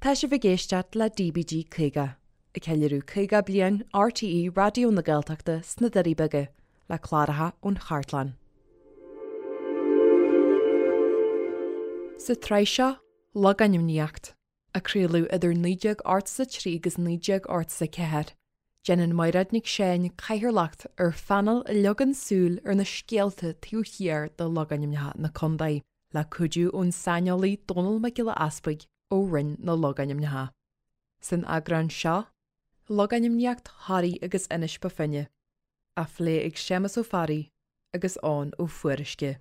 Tá sibh ag éisteacht le DBG 50, ag ceiliúradh 50 bliain RTÉ Raidió na Gaeltachta sna Doirí Beaga, le cláracha ón chartlann. Sa tsraith seo, Logainmníocht, a craoladh idir 1983 agus 1984, déanann Mairéad Nic Seáin cathaoirleacht ar phainéal a leagann súil ar na scéalta taobh thiar de logainmneacha na contae, le cuidiú ón saineolaí Dónall Mac Giolla Easpaig ó Roinn na Logainmneacha. San eagrán seo, Logainmníocht Thoraí agus Inis Bó Finne, á phlé ag Séamus Ó Fearraigh agus Eoin Ó Fuaruisce.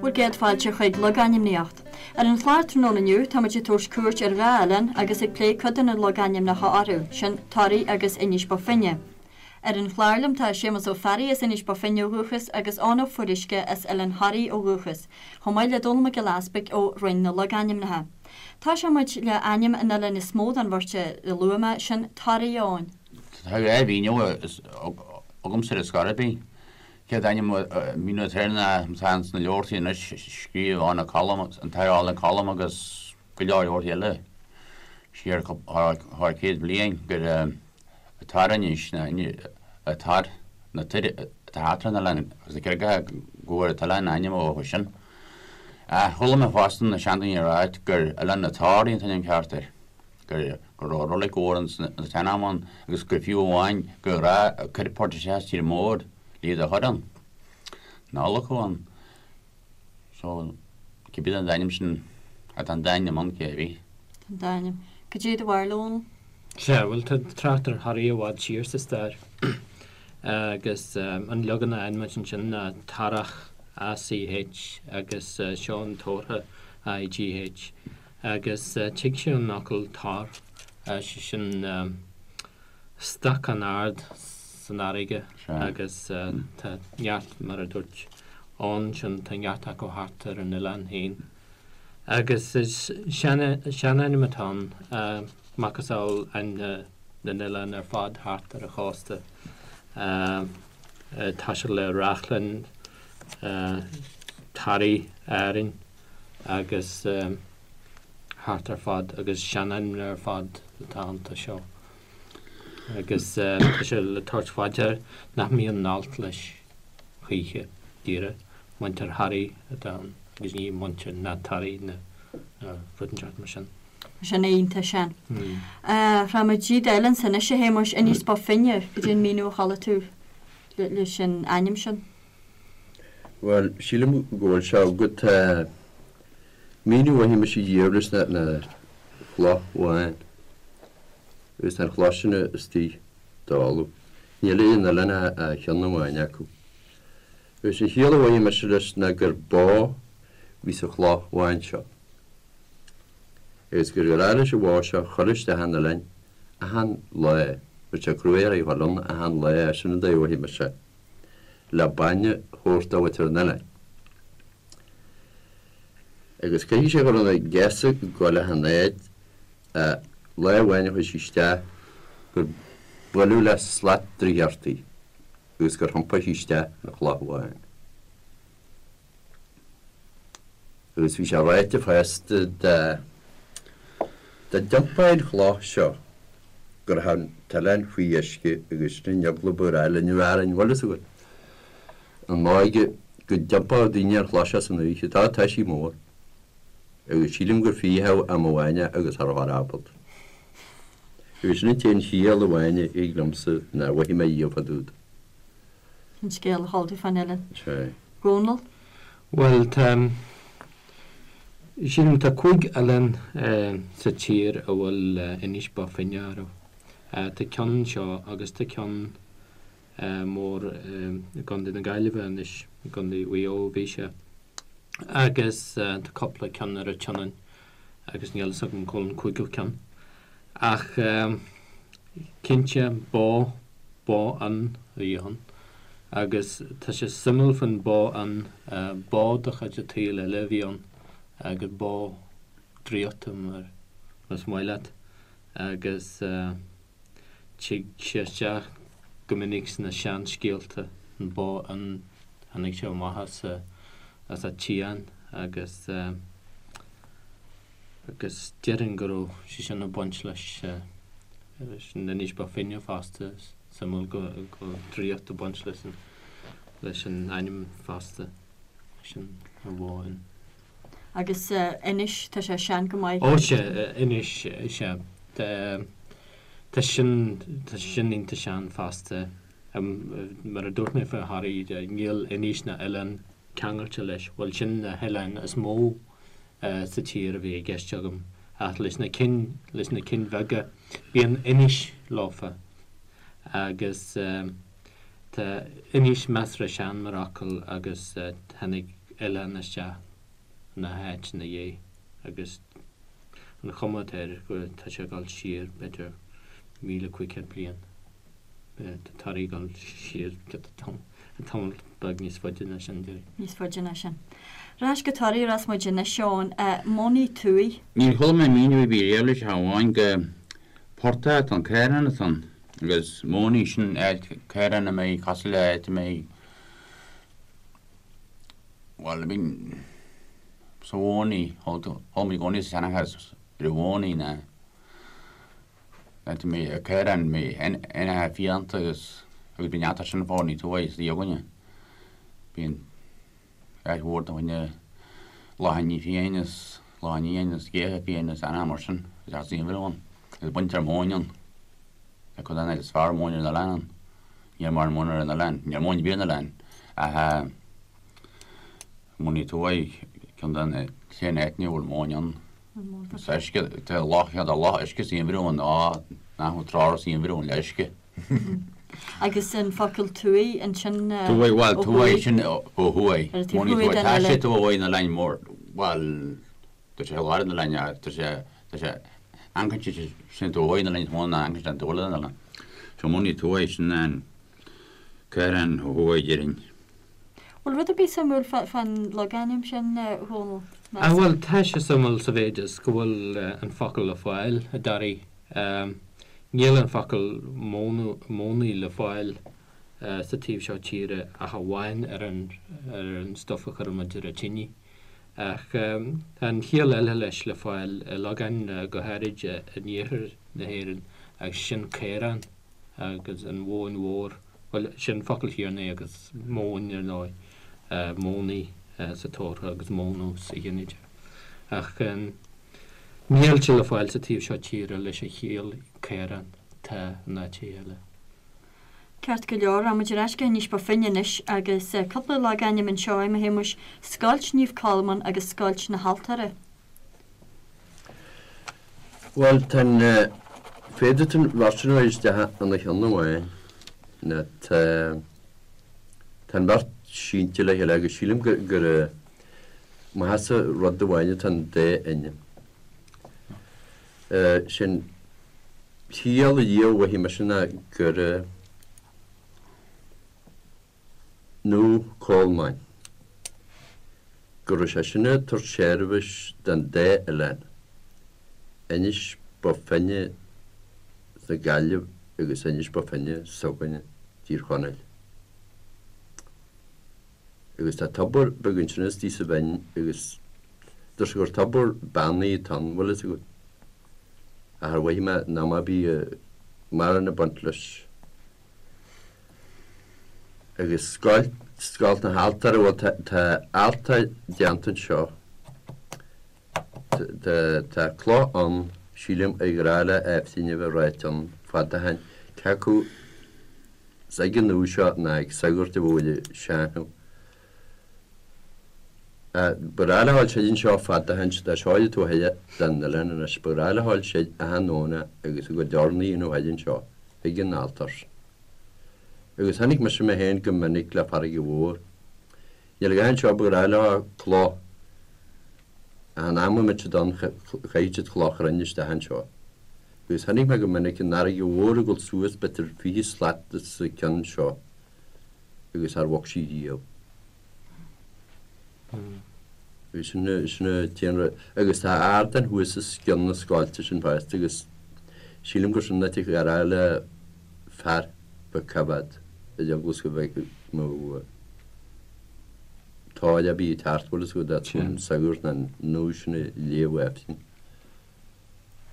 Bhur gcéad fáilte chuig Logainmníocht. Ar an chlár tráthnóna inniu táimid ag tabhairt cuairt ar dhá oileán agus ag plé cuid de na logainmneacha orthu, sin Toraigh agus Inis Bó Finne. Ar an chlár liom tá Séamus Ó Fearraigh as Inis Bó Finne ó dhúchas agus Eoin Ó Fuaruisce as Oileán Thoraí ó dhúchas, chomh maith le Dónall Mac Giolla Easpaig ó Roinn na Logainmneacha. Tosóidh muid le ainm an oileáin is mó den bheirt a luaigh mé, sin Toraigh, a Eoin. Tá dhá mhíniú agamsa ar scor ar bith. Chéad ainm míniú atá air ná atá ins na leabhartaí anois, scríobh ann Colm, an tAth Colm agus go leor leabhartaí eile siar thar 100 bliain gur Tar-Inis ná Tar na toir atá thart ar an oileán agus na carraigeacha go bhfuair an t-oileán a ainm ó sin. Ach chuala mé fosta na seandaoine ag ráit gur Oileán na Toraí an t-ainm ceart air, gur go raibh roilig mhór ins an tsean-am ann agus gur fiú amháin gur ghnáth cuir port isteach as tír mór le iad a chur ann. Ná adhlacadh ann. So, cibé den dá ainm sin, tá an dá ainm ann, cé bith. Tá an dá ainm. Cad é do bharúil, a Dhónaill? Sea, bhuel, tá trácht ar Thoraí i bhfad siar sa stair agus an leagan a fhaigheann muid ansin ná Tarach, ACH, agus seo an Tórtha, IGH, agus tig sé ón fhocal tor, sé sin stoc an-ard san fharraige agus tá neart, mar a dúirt Eoin ansin, tá neart acu thart ar an oileán féin. Agus is seanainm atá ann, macasamhail ainm na n-oileán ar fad thart ar an chósta. Tá sé le Reachlainn, Toraigh, Árainn agus thart ar fad agus seanainmneacha ar fad atá iontu seo. Agus tá sé le tabhairt fá dear nach mbíonn alt leis choíche, díreach, muintir Thoraí atá ann agus ní muintir na Toraí nó rud inteacht mar sin. Sin iontach sean. Rachaimid dtí d'oileán ansin anois a Shéamuis, Inis Bó Finne, cad é an míniú a chuala tú leis an ainm sin? Bhuel, sílim go bhfuil sé agat. Míniú a mhothaigh mise riamh leis ná chloch bhán. Agus tá an chloch sin istigh i dtalamh. Níl ar an oileán ach ceann amháin acu. Agus an chiall a mhothaigh mise leis ná gur bó a bhí sa chloch bhán seo. Agus gur ghnách leis an bhó seo chur isteach an oileáin achan lá. Bhí sé cruaidh uirthi a dhul ann achan lá, sin an dóigh a mhothaigh mise, le bainne a thabhairt do mhuintir an oileáin. Agus caithfidh sé go raibh na geasa ag goil achan áit ach lá amháin a chuaigh sí isteach gur buaileadh le slat draíochta í agus gur thiompaigh sí isteach ina chloch bhán. Agus bhí sé ráite fosta dá dá dtiompófaí an chloch seo go raibh an t-oileán faoi uisce agus sin an eagla ba ghnách linn a bheith orainn, bhfuil fhios agat. An óige go dtiompódh daoine an chloch seo san oíche, tá tá sí mór. Agus sílim gur frítheadh am amháin é agus cha raibh ábalta. Agus sin an t-aon chiall amháin a thig liomsa nár mhothaigh mé riamh fá dtaobh de. An scéal a chuala tú fán oileán. Sea. Dónall? Bhuel, tá, sílim, tá cúig oileán sa tír a bhfuil Inis Bó Finne orthu. Tá ceann anseo agus tá ceann mór i gContae na Gaillimhe anois, i gContae Mhaigh Eo a bhí sé, agus tá cúpla ceann ar an tSionainn agus níl fhios agam cá bhfuil an cúigiú ceann. Ach cinnte, bó, bó fhionn a bhí ann. Agus tá sé suimiúil faoin bó fhionn, bó de chuid an tsaoil eile a bhí ann agus bó draíochta mar más maith leat. Agus tig sé isteach go minic sna seanscéalta, an bó fhionn, tháinig sé amach as a, as an tSiáin agus agus déarfainn go raibh sé sin ag baint leis leis an Inis Bó Finne fosta, is suimiúil go go bhfuil draíocht ag baint leis an leis an ainm fosta, sin an bhó fhionn. Agus Inis, tá sé sean go maith. Ó sea, Inis, sea. Tá sin, tá sin iontach sean fosta. Mar a dúirt mé faoi Thoraí, níl Inis ná oileán ceangailte leis. Bhuel, sin na hoileáin is mó sa tír a bhí i gceist agam. Ach leis na cinn, leis na cinn bheaga, bíonn Inis leofa. Agus tá Inis measartha sean mar fhocal agus tháinig oileán isteach ina háit ina dhiaidh agus an chuma atá air go tá sé ag dul siar b'fhéidir 1,500 bliain. Tá Toraigh ag dul siar tamall beag níos faide ná sin, déarfainn. Níos faide ná sin. Ar ais go Toraigh a rachas muid anois, Eoin. Mónaí Tuaidh. Níor chuala mé míniú ar bith riamh leis ach amháin go portach atá ann, caorán atá ann agus mónaí sin áit caorán a mbeidh cosúil le áit a mbeidh Bhuel, I mean, sa mhónaí, chuala mé i gcónaí sa seanchas ar an mhónaí ná áit a mbeidh caorán, mbeidh éanacha fiánta agus agus bíonn neart sin fá ní tuaith sa againne. Bíonn áit mhór do dhuine lachain fiáin is lachain fhiáin is géithe fiáin is éanacha mar sin agus as aon bhreith ann agus baintear móin ann. Tá cuid den áit is fearr móin ar an oileán ann. Níl mórán móna ar an oileán. Níl móin ar bith ar an oileán ach Mónaí Tuaidh, ceann de na t-aon áiteanna a bhfuil móin ann. Is uisce, tá loch, tá loch uisce sa gheimhreadh ann, á, nach bhfuil trá sa gheimhreadh ann le uisce. Agus an focal tuaidh ansin ó thuaidh? Bhuel, tuaidh sin ó thuaidh. Ar an taobh thuaidh den oileán. Tá sé taobh ó thuaidh den oileán mór, bhuel, Tá sé i lár an oileáin ach tá sé, tá sé, amharcann sé sin taobh ó thuaidh den oileán is mó ná amharcann sé an taobh eile den oileán. So Mónaí Tuaidh sin an caorán ó thuaidh déarfainn. Bhfuil rud ar bith suimiúil fán logainm sin, a Dhónaill? Ah bhuel, tá sé suimiúil sa mhéid is go bhfuil an focal le fáil i dToraigh. Níl an focal mónaí le fáil sa taobh seo tíre ach amháin ar an ar an stuif a chuireann muid ar an tine. Ach tá an chiall eile leis le fáil i logainmneacha, go háirid in iarthar na hÉireann, agus sin caorán agus an mhóin mhór, bhuel, sin focal Thiarnaigh agus móin, ar ndóigh, mónaí sa tabharthach agus mónadh sa ghinideach. Ach níl sé le fáil sa taobh seo tíre leis an chiall caorán, tá in áiteacha eile. Ceart go leor, rachaidh muid ar ais go hInis Bó Finne anois agus cúpla logainm anseo, a Shéamuis, Scoilt Naomh Colmán agus Scoilt na hAltóra. Bhuel, tá an, féadfaidh tú an bheirt sin a chur isteach ina cheann amháin, nó tá, tá an bheirt sínte le chéile agus sílim gur, gur maitheasa rud amháin atá an dá ainm. Sin. Ciall a dhia mhothaigh mise ná gur Naomh Colmáin, go raibh sé sin ag tabhairt seirbhís don dá oileán, Inis Bó Finne sa Ghaillimh agus Inis Bó Finne s'againne, Tír Chonaill. Agus tá tobar beag ansin istigh sa bhinn agus deir sé gur tobar beannaithe atá ann, bhfuil fhios agat. Ach ar mhothaigh mé ná má bhí mórán ag baint leis. Agus scoilt, scoilt na haltóra, bhuel tá, tá altóir déanta anseo. Tá, tá cloch ann, sílim, ar ghnách le Aifrinn a bheith ráite ann fada ó shin, cé acu is ag an uair seo ná ag sagart a bhfuil seanchas. Ba ghnách le ghabháil soir anseo fada ó shin, tá seo ar an taobh thoir den oileán anois, ba ghnách le ghabháil soir achan Domhnach agus a gcuid urnaí a dhéanamh thoir anseo chuig an altóir. Agus chonaic mise mé féin go minic le farraige mhór. Níl a dhath anseo ba ghnách leo cloch achan am a mbeadh siad ann chaithfeadh siad cloch chruinn isteach anseo. Agus chonaic mé go minic an fharraige mhór ag dul suas b'fhéidir 20 slat os a cionn seo agus char bhog sí riamh. Agus sin sin an t-aon rud. Agus tá ardán thuas os cionn na scoilte sin fosta agus sílim gur sin an áit a ghearrfá le fear beag coimhéad ar eagla is go mbeadh nó tóir ar bith ag teacht bhfuil fhios agat dá an sagart ná an nó sin a léamh Aifrinn.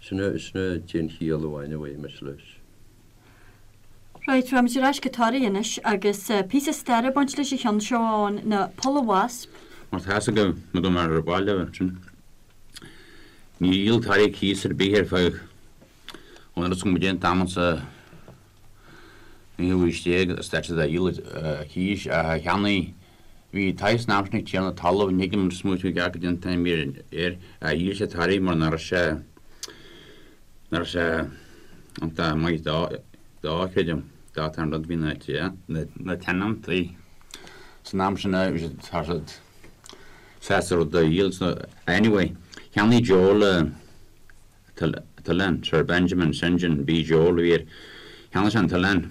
Sin sin an t-aon chiall amháin a bhfaighidh mise leis. Right, raghaimid ar ais go Toraigh anois agus píosa staire ag baint leis an cheann seo ann, ná Poll a' Wasp. Mar tá fhios agaibh, nó go mbeadh ar bhaile ansin. Níor dhíol Toraigh cíos ar bith ar feadh ón rud is go mba an t-am sa naoú haois déag a stad siad a dhíol cíos ach a cheannaigh Bhí taithí san am sin ag tiarna talaimh, ní thuigim an smaoitiú ceart go dtí an t-ainm air, a dhíol sé Toraigh mar nach raibh sé nach raibh sé iontach maith dó dó creidim, dá t-an rud bhí na na tionóntaí san am sin bhí siad tá siad sásta rud a dhíol so anyway cheannaigh Joe le t-oileán, Sir Benjamin St John B. Joel a bhí air. Cheannaigh sé an t-oileán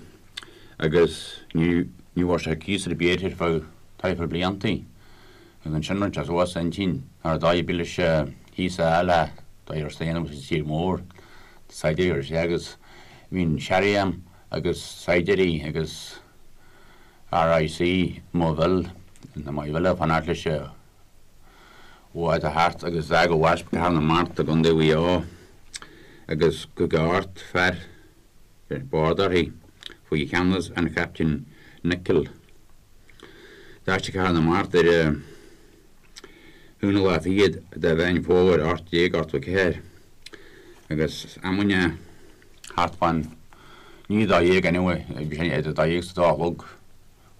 agus ní bhfuair sé cíos ar bith air ar feadh taifead bliantaí. Agus ansin rinne sé suas a intinn nach raibh dóigh ar bith leis cíos a fháil ach dóigh ar staonadh sa tír mór. Saighdiúirí ar sé agus bhí an Sheriam agus saighdiúirí agus RIC Maigh Bhil, na Maigh Bhile ag fanacht leis bhád a theacht agus d'fhág an Wasp Cathair na Mart i gContae Mhaigh Eo agus 58 fear ar bord uirthi faoi cheannas an Chaptaein Nicholl. D'fhág sí Cathair na Mart ar an aonú lá fichead de Mheán Fómhair 1884 agus amanna thart fán i ndiaidh a 12 anyway, bhí sé idir 12 is a dó a chlog.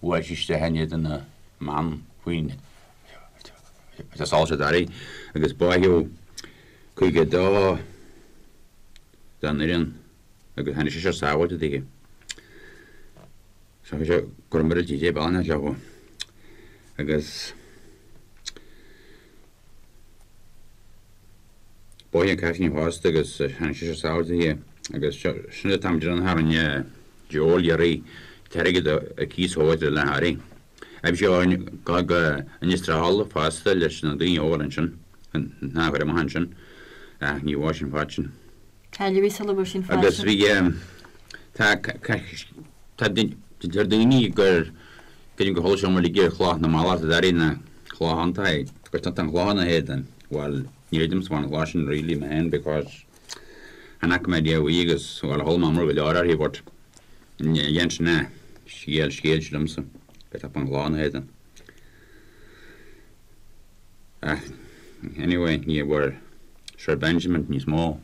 Bhuail sí isteach in éadan na mban faoin solas i dToraigh agus báitheadh 52 den fhoireann agus tháinig seisear sábháilte daoithi. So bhí sé go raibh muiríl TJ Ballina leo agus Báitheadh an cailín fosta agus tháinig seisear sábháilte daoithi agus sin an t-am deireanach a rinne Joel iarraidh t-airgead a cíos a thabhairt le Harry. Bhí sé go go Inis Tráthála fosta leis na daoine óga ansin, nach raibh amach ansin ach ní bhfuair sé an fad sin. Cailleadh í sula bhfuair sé an fad Agus sin. bhí tá tá deir daoine gur creidim gur chuala siad uilig ar chloch na mallach i dToraigh na cloch iontach é gur tá an chloch ina héadan. Bhuel ní chreidimse an chloch sin really mé féin because chan fhaca mé riamh í agus bhuel chuala mé iomrá go leor uirthi but dhein sin é scéal scéal liomsa gur tá an chloch ina héadan. Ach anyway ní bhfuair Sir Benjamin níos mó.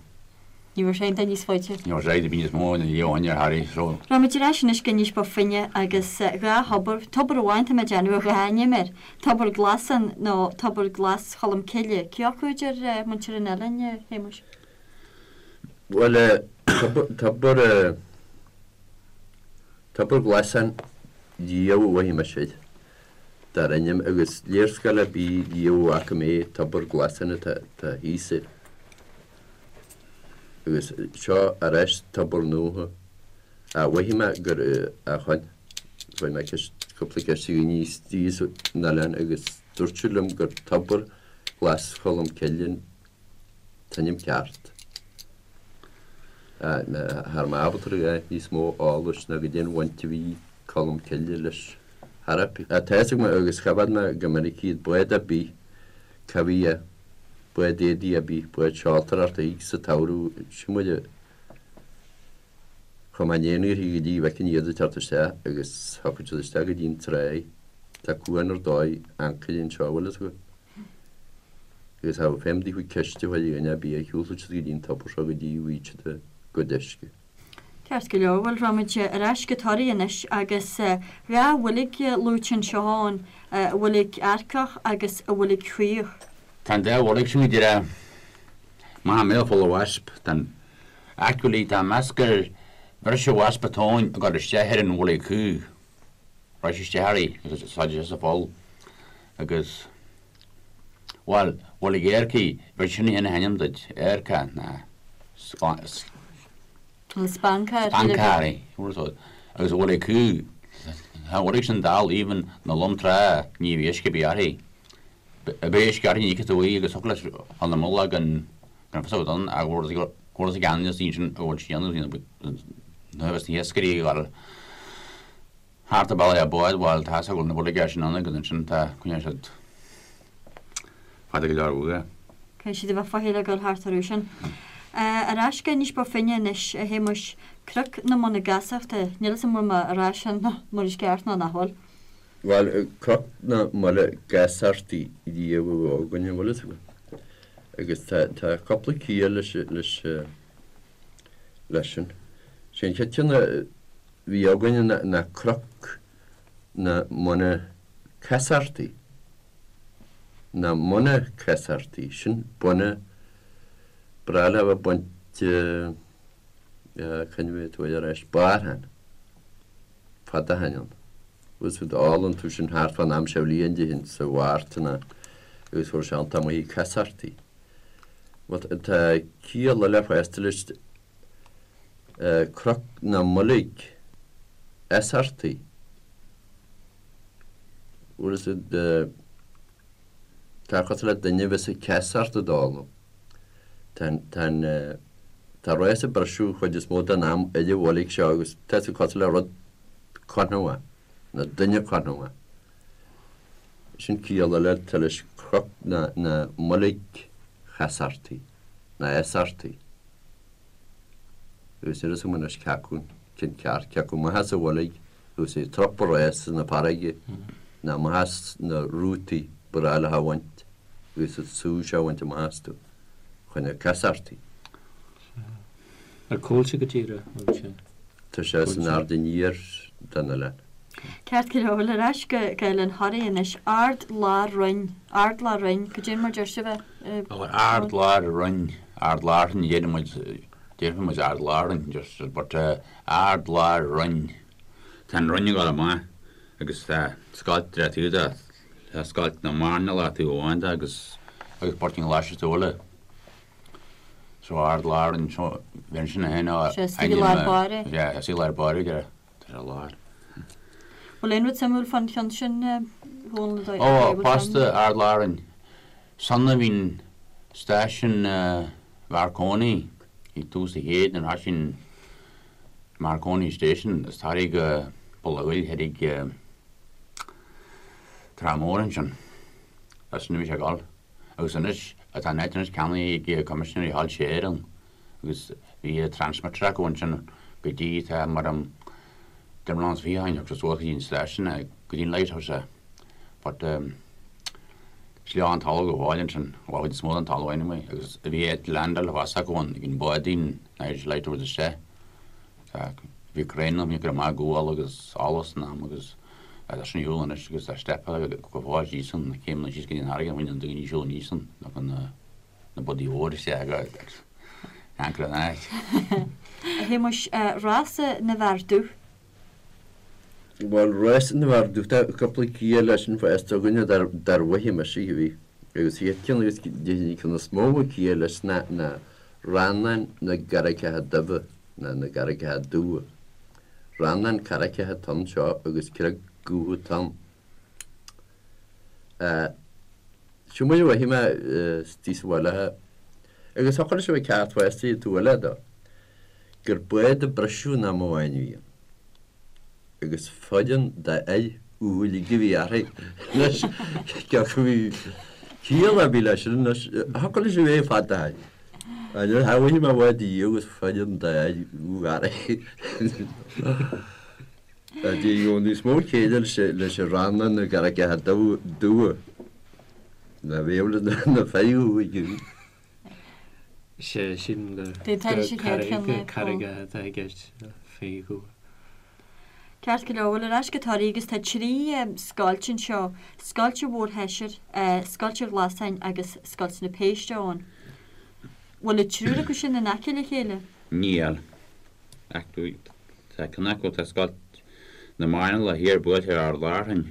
Ní bhfuair sé aon duine níos faide. Ní bhfuair sé aon duine níos mó ina dhiaidh ó shin ar Harry so. Raghaimid ar ais anois go Inis Bó Finne agus dhá thobar, tobar amháin tá mé ag déanamh ar dhá ainm air, Tobar Glasán nó Tobar Glas Cholm Cille. Cé acu a deir muintir an oileáin, a Shéamuis? Bhuel, tobar, Tobar Glasán riamh a mhothaigh mise air. Dar ainm agus léarscáil ar bith riamh a bhfaca mé Tobar Glasán atá thíos air. Agus seo ar ais tobar nua a mhothaigh mé gur a chun. Chuir mé ceist, cúpla ceist ar dhaoine istigh san oileán agus dúirt siad liom gur Tobar Glas Cholm Cille an t-ainm ceart. Cha raibh mé ábalta a dhath níos mó eolais ná goidé an bhaint a bhí Colm Cille leis thar. Tá fhios agam agus choimhéad mé go minic iad, bád ar bith, cá bhí é, bád éadaí ar bith, bád seoltóireachta thig sa tsamhradh, sin muid a chuaigh mé in éineacht go dtí bhfeicfinn iad ag teacht isteach agus thiocfadh siad isteach go dtí an tráigh. Tá cuan ar dóigh ancaire anseo, bhfuil fhios agat. Agus cha raibh feidhm daofa ceist a chur ar dhuine ar bith, shiúlfadh siad go dtí an tobar seo go dtí a bhfaighidh siad a gcuid uisce. Ceart go leor, bhuel raghaimid ar ais go Toraigh anois agus dhá bhuilg luaite anseo ann, an Bhuilg Earcach agus an Bhuilg Chaoch. Tá an dá bhuilg sin go díreach amach i mbéal Pholl a' Wasp. Tá an actually tá meas gur bhris an wasp an tóin ag dul isteach ar an bhuilg chaoch. Bhris isteach uirthi agus sáide sé sa pholl agus bhuel, Bhuilg Earcaigh, b'fhéidir sin a théann a hainm duit, Earcach ná. An spancar. Spancar, agus a bhfuil acu, tá an bhuirg sin dall even na lom trá ní bhí uisce ar bith uirthi. Bheadh uisce uirthi ní fheicfeadh tú í agus thiocfadh leis chun na mullaigh gan gan fios agat ann ach bhfuil bhfuil a gceannas sin a bhfuil sí ann nó bheas na hiascairí ag dul thart an bealach le bád bhuel tá a fhios go bhfuil na buirge sin ann agus ansin tá coinneoidh siad fada go leor uathu. Caithfidh siad a bheith faichilleach ag dul thart orthu sin. Ar ais go Inis Bó Finne anois, a Shéamuis, Cnoc na Mona Gasachta, níl 'fhios a'm an bhfuil mé a rá sin mar is ceart nó nach bhfuil. Bhuel, Cnoc na Mona Gasachtaí riamh a bhí againn, an bhfuil fhios agat. Agus tá tá cúpla ciall leis leis leis sin. Sé an chéad cheann a bhí againn ná Cnoc na Mona Casartaí. Na Mona Casartaí, sin buna breá le bheith ag baint cá bhfuil tú ar ais, barrthan, fada ó shin ann. Agus d'fhoghlaim tú sin thart fán am seo bhliain déarfainn sa Mhárta ná agus fuair sé iontach maith casartaí. Bhuel tá ciall eile fosta leis Cnoc na mBoilg Easartaí. Bhfuil fhios a'd, tá cosúil le duine a bheas ag ceasacht ag dul. Tá an, tá an, tá rás ag briseadh chuid is mó den am ar an bhoilg seo agus tá sé cosúil le rud cothromach, nó duine cothromach. Sin ciall eile atá leis Cnoc na, na mBoilg Chasartaí, ná Easartaí. Agus níl fhios agam anois cé acu an ceann ceart, cé acu amach as an bhoilg agus é ag trupadh rása na farraige ná amach as na rútaí ba ghnách leo a bhaint agus an sú seo a bhaint amach astu chun na casartaí. Ar cá bhfuil sé go díreach, an bhfuil sé? Tá sé san aird aniar den oileán. Ceart go leor, bhuel ar ais go Oileán Thoraí anois. Ard Lár Roinn, Ard Lár Roinn, cad é mar deir sibh é? Bhuel Ard Lár Roinn, Ard Lárthainn a deireann muid, déarfaidh muid Ard Lárthainn just but Ard Lár Roinn. Tá an Roinn ag dul amach agus tá scoilt ar an taobh de, tá scoilt na mairnéalach taobh amháin de agus agus Port an Ghlais sa taobh eile. So Ard Lár Roinn, so bheinn sin a haon Sé istigh i lár báire. Yeah, istigh i lár báire, yeah. Tá sé i lár. Bhfuil aon rud suimiúil fán cheann sin, a Dhónaill? Ó, fosta, Ard Lárainn. San a bhíonn stáisiún Mharconi ag tús an chéid nuair a thoisigh Marconi Station as Toraigh go Poll a' Ghoill thoir Trá Mhór ansin. As sin a bhí sé ag dul. Agus anois, tá an áit anois ceannaithe ag Coimisinéirí Shoilse Éireann. agus bhí transmitter acu ansin go dtí tá mar am deich mbliana is 20 ó shin thug sé suas go dtí an stáisiún é go dtí an lighthouse é but is leo an talamh go fóill ansin bhuel chuid is mó den talamh anyway agus bhí áit landáil fosta acu ann ag an báidín Irish Light isteach tá bhí crainn ann bhí cur amach gual agus allas san am agus tá sin ar shiúl anois agus tá steipeáil go fóill síos ann na céimeanna síos go dtí an fharraige bhain an daoine siúl aníos ann nó na na bádaí mhóra isteach agus anchor an áit. A Shéamuis, Rása na bhFear Dubh. Bhuel, Rása na bhFear Dubh, tá cúpla ciall leis sin fosta againne dar mhaithe mise a bhí. Agus an chéad cheann agus déarfainn an ceann is mó a ciall leis ná ná Rannán na gCarraigeacha Dubha ná na gCarraigeacha Dubha. Rannán carraigeacha atá anseo agus creag dhubh atá ann. Seo mar a mhothaigh mé istigh sa bhaile agus thiocfadh leis a bheith ceart fosta an taobh eile de, gur bád a briseadh in am amháin a bhí ann agus foireann d'fhir dhubha uilig a bhí uirthi. Anois, cé acu bhí ciall ar bith leis sin anois, thiocfadh leis a bheith fada ó shin. Níor shamhlaigh mé bád a dhíol agus foireann d'fhir dhubha uirthi. Bhí níos mó céille leis an Rannán na gCarraigeacha Dubha ná bheadh le na fir dhubha. Sé sin gur carraigeacha atá i gceist, fir dhubha. Ceart go leor, bhuel ar ais go Toraigh agus tá 3 scoilt anseo, Scoilt an Mhórshaisair, Scoilt an Ghlasáin agus Scoilt na Péiste ann. Bhfuil an triúr acu sin in aice le chéile? Níl. Ach tá ceann acu, tá Scoilt na Mairnéalach thiar buailte ar Ard Lárthainn,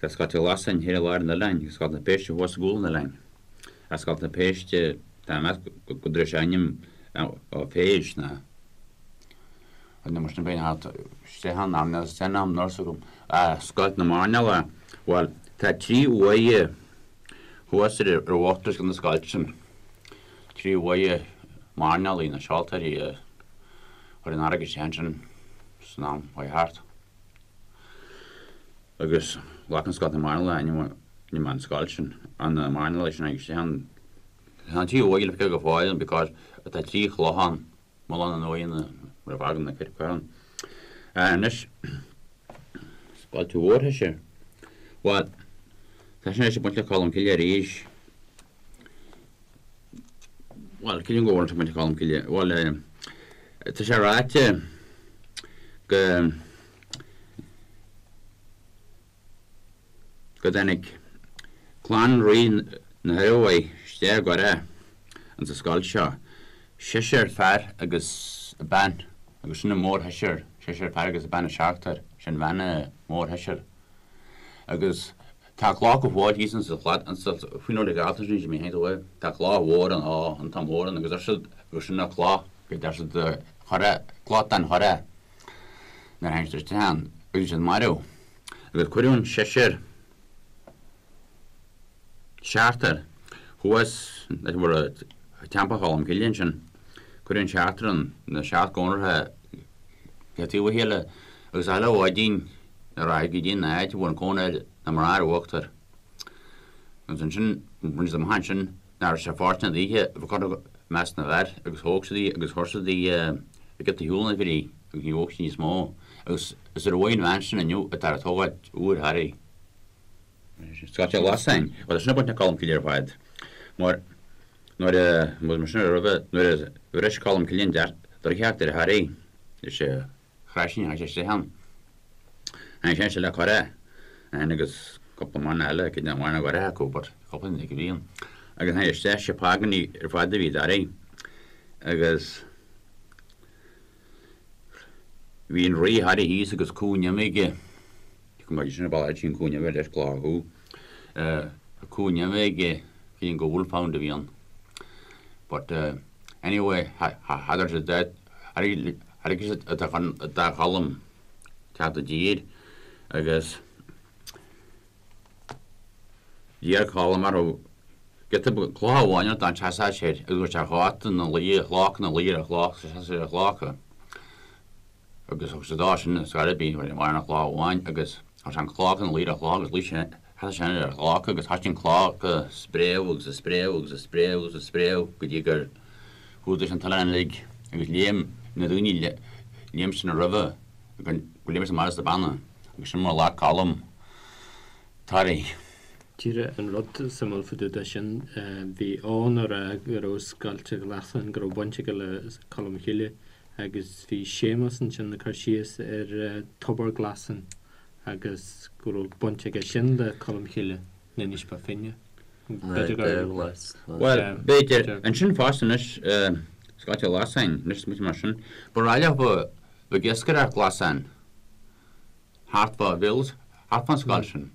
tá Scoilt an Ghlasáin thiar i lár an oileáin agus Scoilt na Péiste thuas i gcúl an oileáin. Ach Scoilt na Péiste, tá mé ag meas go dtabharfaidh sé ainm ó phéist ná. Nó mar sin bheinn thart isteach ann am níl san am nurse agam. Ah, Scoilt na Mairnéalaigh. Bhuel, tá trí uaighe thuas ar ar bhuntrasc na scoilte sin. Trí uaighe mairnéalaigh, na seoltóirí a chuir an fharraige isteach ansin san am chuaigh thart. Agus ghlac an Scoilt na Mairnéalaigh ainm ainm an scoilt sin, an na mairnéalaigh sin a tháinig isteach ann. Tá an trí uaighe le feiceáil go fóill ann because tá trí chloch ann. Mullán an uaigheanna mar a bhfágann na coirp ann. Anois, Scoilt Mhórthoise. Bhuel, tá sin anois ag baint le Colm Cille arís. Bhuel, creidim go bhfuil sé ag baint le Colm Cille. Bhuel, tá sé ráite go. go dtáinig clann Rí na hIormhaí isteach i gCurrach ins an scoilt seo, seisear fear agus bean, agus sin an mórsheisear, seisear fear agus bean an seachtar, sin bhean an mhórsheisear. Agus tá cloch go fóill thíos ins an shlad, ins an, faoin uair a ghealltar sin, Jimí Haint uaidh, tá cloch mhór ann, á, an t-am mór ann, agus deir siad gur sin an cloch, go deir siad Currach, cloch den Churrach, nuair a tháinig siad isteach ann, agus bhí siad marbh. Agus cuireadh an seisear, seachtar, thuas leis an bhfuil Teampall Cholm Cille ansin. Cuireadh an seachtar ann, na seacht gcónraithe le taobh a chéile agus chuile mhaidin nuair a rachadh go dtí an áit a bhfuil an cónaí ar na mná ar uachtar. Agus ansin, rinne siad amach ansin nach raibh sé fóirsteanach daoithe a bheith curtha i measc na bhfear agus thóg siad í agus chuir siad í i gciot a shiúl na bhfir í agus ní bhog sí níos mó. Agus is ar uaigh an bhean sin inniu atá ag tógáilt úr Thoraí. Scoilt an Ghlasáin. Bhuel, sin ag baint le Colm Cille ar fad. Mar nuair a, mar sin roimhe, nuair a bhris Colm Cille an droichead ar Thoraí, is é Chraith sé isteach ann. Tháinig sé isteach le curach ann agus cúpla mairnéalach eile, cé nach mairnéalach go raibh acu but cúpla duine a bhí ann. Agus tháinig isteach, sé Págánaigh ar fad a bhí i dToraí agus bhí an rí Thoraí thíos agus cú nimhe aige, go mbeidh sin ar ball sin cú nimhe leis clár chú, cú nimhe aige, bhí an go wolfhound a bhí ann. But anyway, thagair siad dá, thairg siad do Cholm teacht i dtír agus d'iarr Colm orthu giota cloch amháin a dá seasfadh sé air agus go raibh sé chóta ina luí ar chloch ina luí ar chloch seasadh sé ar chlocha. Agus thug sé dó sin ar scor ar bith, bhí an chloch amháin agus chuir sé an chloch ina luí ar an chloch agus luigh sé, sheas sé ar an chloch agus thoisigh an chloch ag spréadh agus ag spréadh agus ag spréadh agus ag spréadh go dtí gur chumhdaigh sé an t-oileán uilig agus léim na daoine, léim sin roimhe go léim siad amach as na beanna agus sin mar a ghlac Colm Toraigh. Díreach an rud suimiúil fá dtaobh de sin, bhí Eoghan ag rá go raibh Scoilt an Ghlasáin, go raibh baint aige le Colm Cille agus bhí Séamus ansin ag cur síos ar Tobar Glasáin agus go raibh baint aige sin le Colm Cille in Inis Bó Finne. B'fhéidir gur. Bhuel, b'fhéidir. Ansin fosta anois, Scoilt an Ghlasáin, anois smaoiním mar sin, ba ráileach ba ag iascaireacht glasán thart fá Bhills, thart fán scoilt sin.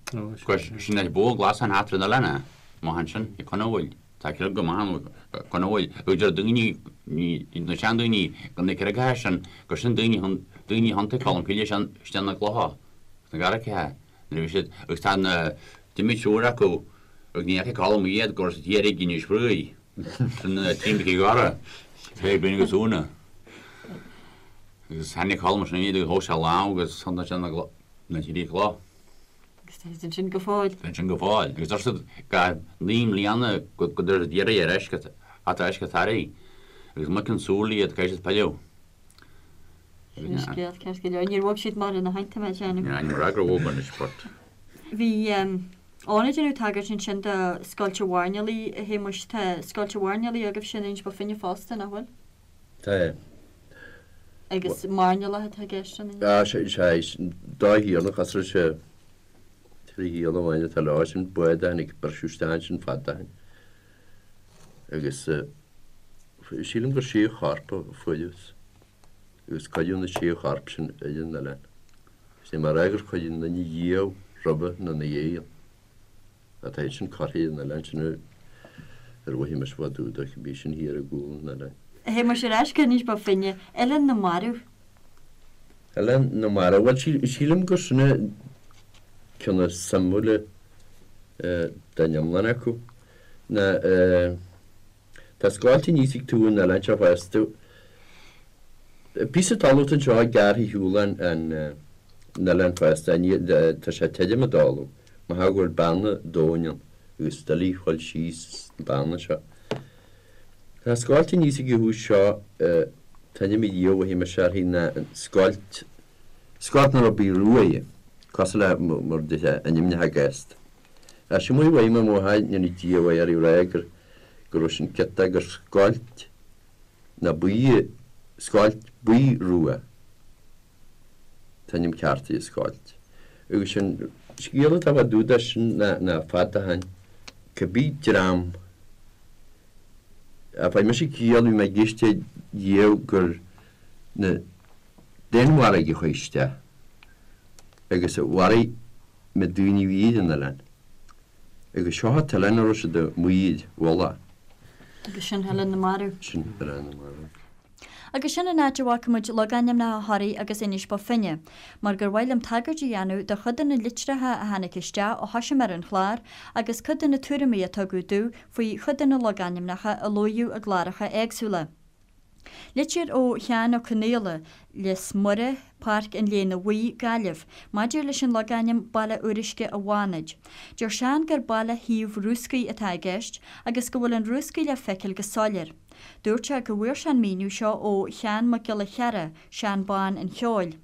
Sin é bó glasán thart ar an oileán é, amach ansin, ag Conabhail. Tá creag go maith ann, Conabhail. Agus deir daoine, na seandaoine, go na creagacha sin, gur sin daoine, daoine a thiontaigh Colm Cille isteach na gclocha, sna garraithe, nuair a bhí siad, agus tá na, d'imigh triúr acu, agus ní fhaca Colm iad go raibh siad thiar ag Inis Fraoigh, sin na trí Mhic Dhara, Péibín agus Úna. Agus tháinig Colm ansin iad agus thóg sé a lámh agus thiontaigh sé na trí chloch. Agus tá siad ansin go fóill. Tá ansin go fóill. Agus deir siad go naoi mbliana go dtabharfaidh siad iarraidh ar ais go ar ais go Toraigh. Agus muic an tsúil iad caithfidh siad pilleadh. Sin scéal ceart go leor. Níor bhog siad mara na hAinte mé déanamh. Ní raibh gur bhog anois but. Bhí Eoghan ag déanamh tagairt ansin do Scoilt an Mhairnéalaigh, a Shéamuis. Tá Scoilt an Mhairnéalaigh agaibhse in Inis Bó Finne fosta, nach bhfuil? Tá. Agus mairnéalach atá i gceist ann? Sea, sea, dá thiarna, chasraigh sé trí thiarna amháin atá leo, sin bád a tháinig, briseadh isteach ansin fada ó shin. Agus sílim gur sé chorp a fuarthas agus cuireadh na sé chorp sin ar an oileán. Is é mar fhreagra cuireadh an duine dhiaidh roimhe nó ina dhiaidh ann. Tá iad sin curtha ar an oileán sin ar mhaithe mise fá dtaobh de, bhí sin thiar i gcúl an oileáin. A Shéamuis ar ais go hInis Bó Finne, Oileán na Marbh. Oileán na Marbh, bhuel sílim gur sin an ceann is suimiúla den iomlán acu. Ná tá scoilt aníos ag taobh an oileáin seo fosta. Píosa talamh atá anseo gearrtha ar shiúl an oileáin fosta, tá sé tirim an talamh, mar go bhfuil beanna domhain ann agus doiligh a dhul síos sna beanna seo. Tá scoilt aníos ag an thús seo, t-ainm a Dhia mhothaigh mise uirthi ná an scoilt, scoilt nach raibh bith rua í, cosúil le mar a déarfá ainmneacha gasta. Ach sin mar a mhothaigh mé mo mháthair, go ndéana Dia a mhaith uirthi ag rá gur, go raibh sin ciotach, gur scoilt ná buí, scoilt buí rua. T-ainm ceart í an scoilt. Agus sin scéal atá fá dtaobh de sin ná fada ó shin, cibé dream, a fuair mise ciall, bhí mé ag éisteacht riamh gur na Danmhargaigh a chuaigh isteach agus a mharaigh na daoine a bhí ar an oileán. Agus seo an t-oileán a raibh siad amuigh ar mhullach. Agus sin Oileán na Marbh. Sin Oileán na Marbh. Agus sin an áit a bhfágfaidh muid logainmneacha Thoraí agus Inis Bó Finne, mar gur mhaith liom tagairt a dhéanamh do chuid de na litreacha a tháinig isteach ó thoisigh mé ar an chlár agus cuid de na tuairimí a tugadh domh faoi chuid de na logainmneacha a luaíodh i gcláracha éagsúla. Litir ó Sheán Ó Conaola, Lios Muire, Páirc an Léana Bhuí, Gaillimh, maidir leis an logainm Baile Fhíoruisce a' Bhánaid. Deir Seán gur baile thaobh Rúscaí atá i gceist agus go bhfuil an Rúscaí le feiceáil go soiléir. Dúirt sé go bhfuair sé an míniú seo ó Sheán Mac Giolla Chearra, Seán Bán an Cheoil.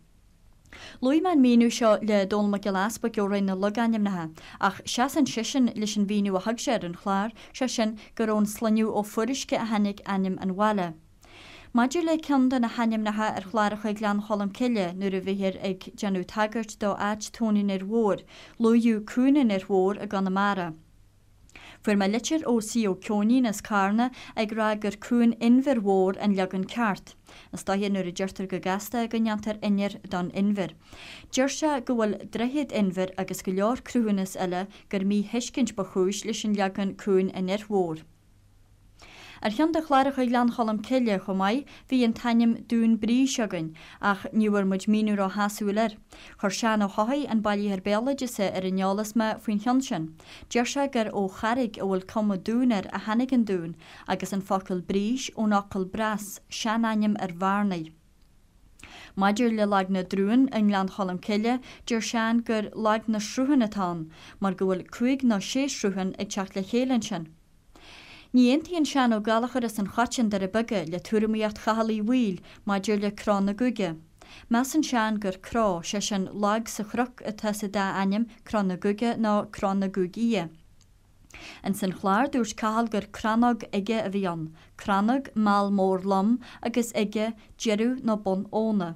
Luaigh mé an míniú seo le Dónall Mac Giolla Easpaig ó Roinn na Logainmneacha, ach seasann seisean leis an mhíniú a thug sé ar an chlár, sé sin gur ón sloinneadh Ó Fuaruisce a tháinig ainm an bhaile. Maidir le ceann de na hainmneacha ar chláracha Ghleann Cholm Cille nuair a bhíthear ag déanamh tagairt do áit Tóin an Fhir Mhóir, luaíodh Cuan an Fhir Mhóir i gConamara. Fuair mé litir ó C. Ó Ceoinín as Carna ag rá gur Cuan Inbhir Mhór an leagan ceart. Is dóiche nuair a deirtear go gasta go ndéantar inir don inbhear. Deir sé go bhfuil Droichead Inbhir agus go leor cruthúnas eile gur míthuiscint ba chúis leis an leagan Cuan an Fhir Mhóir. Ar cheann de chláracha Ghleann Cholm Cille chomh maith bhí an t-ainm Dún Brís againn ach ní bhfuair muid míniú ró-shásúil air. Chuir Seán Ó hEochaidh, an bailitheoir béaloideasa, ar an eolas mé faoin cheann sin. Deir sé gur ó charraig a bhfuil cuma dúin air a tháinig an dún agus an focal brís ón fhocal breas, seanainm ar bhearnaigh. Maidir le Lag na dTrúan i nGleann Cholm Cille, deir Seán gur Lag na Sruthán atá ann mar go bhfuil cúig nó sé shruthán ag teacht le chéile ansin. Ní aontaíonn Seán Ó Gallchóir as an Choiteann, Doire Beaga, le tuairimíocht Chathail Uí Bhaoill maidir le Cró na gCúige. Measann Seán gur cró, sé sin lag sa chnoc atá sa dá ainm, Cró na gCúige nó Cró na gCúig Fhia. Ins an chlár dúirt Cathal gur crannóg uige a bhí ann, crannóg, meall mór lom, agus uige, deireadh nó bun abhna.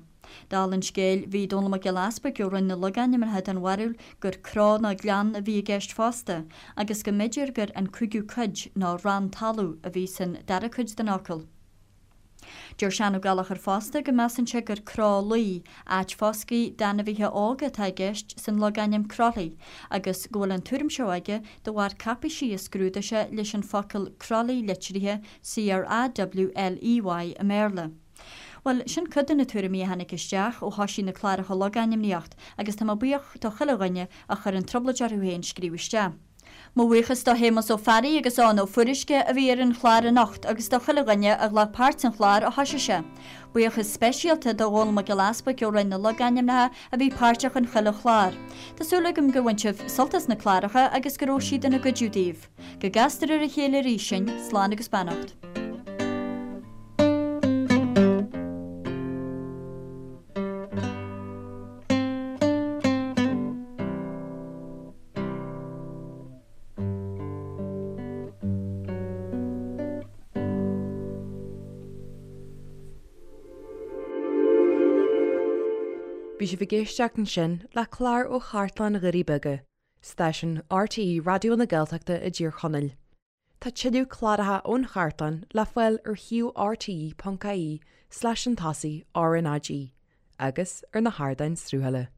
Dála an scéil, bhí Dónall Mac Giolla Easpaig ó Roinn na Logainmneacha den bharúil gur cró nó gleann a bhí i gceist fosta, agus go mb'fhéidir gur an cúigiú cuid nó rann talaimh a bhí san dara cuid den fhocal. Deir Seán Ó Gallchóir fosta go measann sé gur cró luí, áit foscaidh d'ainmhithe óga atá i gceist san logainm Crolly, agus go bhfuil an tuairim seo aige de bharr cáipéisí a scrúdaigh sé leis an focal Crowley litrithe C-R-A-W-L-E-Y i mBéarla. Bhuel, sin cuid de na tuairimí a tháinig isteach ó thoisigh na cláracha logainmníocht agus tá mé buíoch do chuile dhuine a chuir an trioblóid orthu féin scríobh isteach. Mo bhuíochas do Shéamus Ó Fearraigh agus Eoghan Ó Fuaruisce a bhí ar an chlár anocht agus do chuile dhuine a ghlac páirt san chlár ó thoisigh sé. Buíochas speisialta do Dhónall Mac Giolla Easpaig ó Roinn na Logainmneacha a bhí páirteach in chuile chlár. Tá súil agam gur bhain sibh sult as na cláracha agus go raibh siad ina gcuidiú daoibh. Go gcastar ar a chéile arís sinn, slán agus beannacht. Bhí sibh ag éisteacht ansin le clár ó Chartlann Dhoirí Beaga. Stáisiún RTÉ Raidió na Gaeltachta i dTír Chonaill. Tá tuilleadh cláracha ón chartlann le fáil ar shuíomh rte.ie slash an tosaigh RnaG agus ar na hardáin sruthála.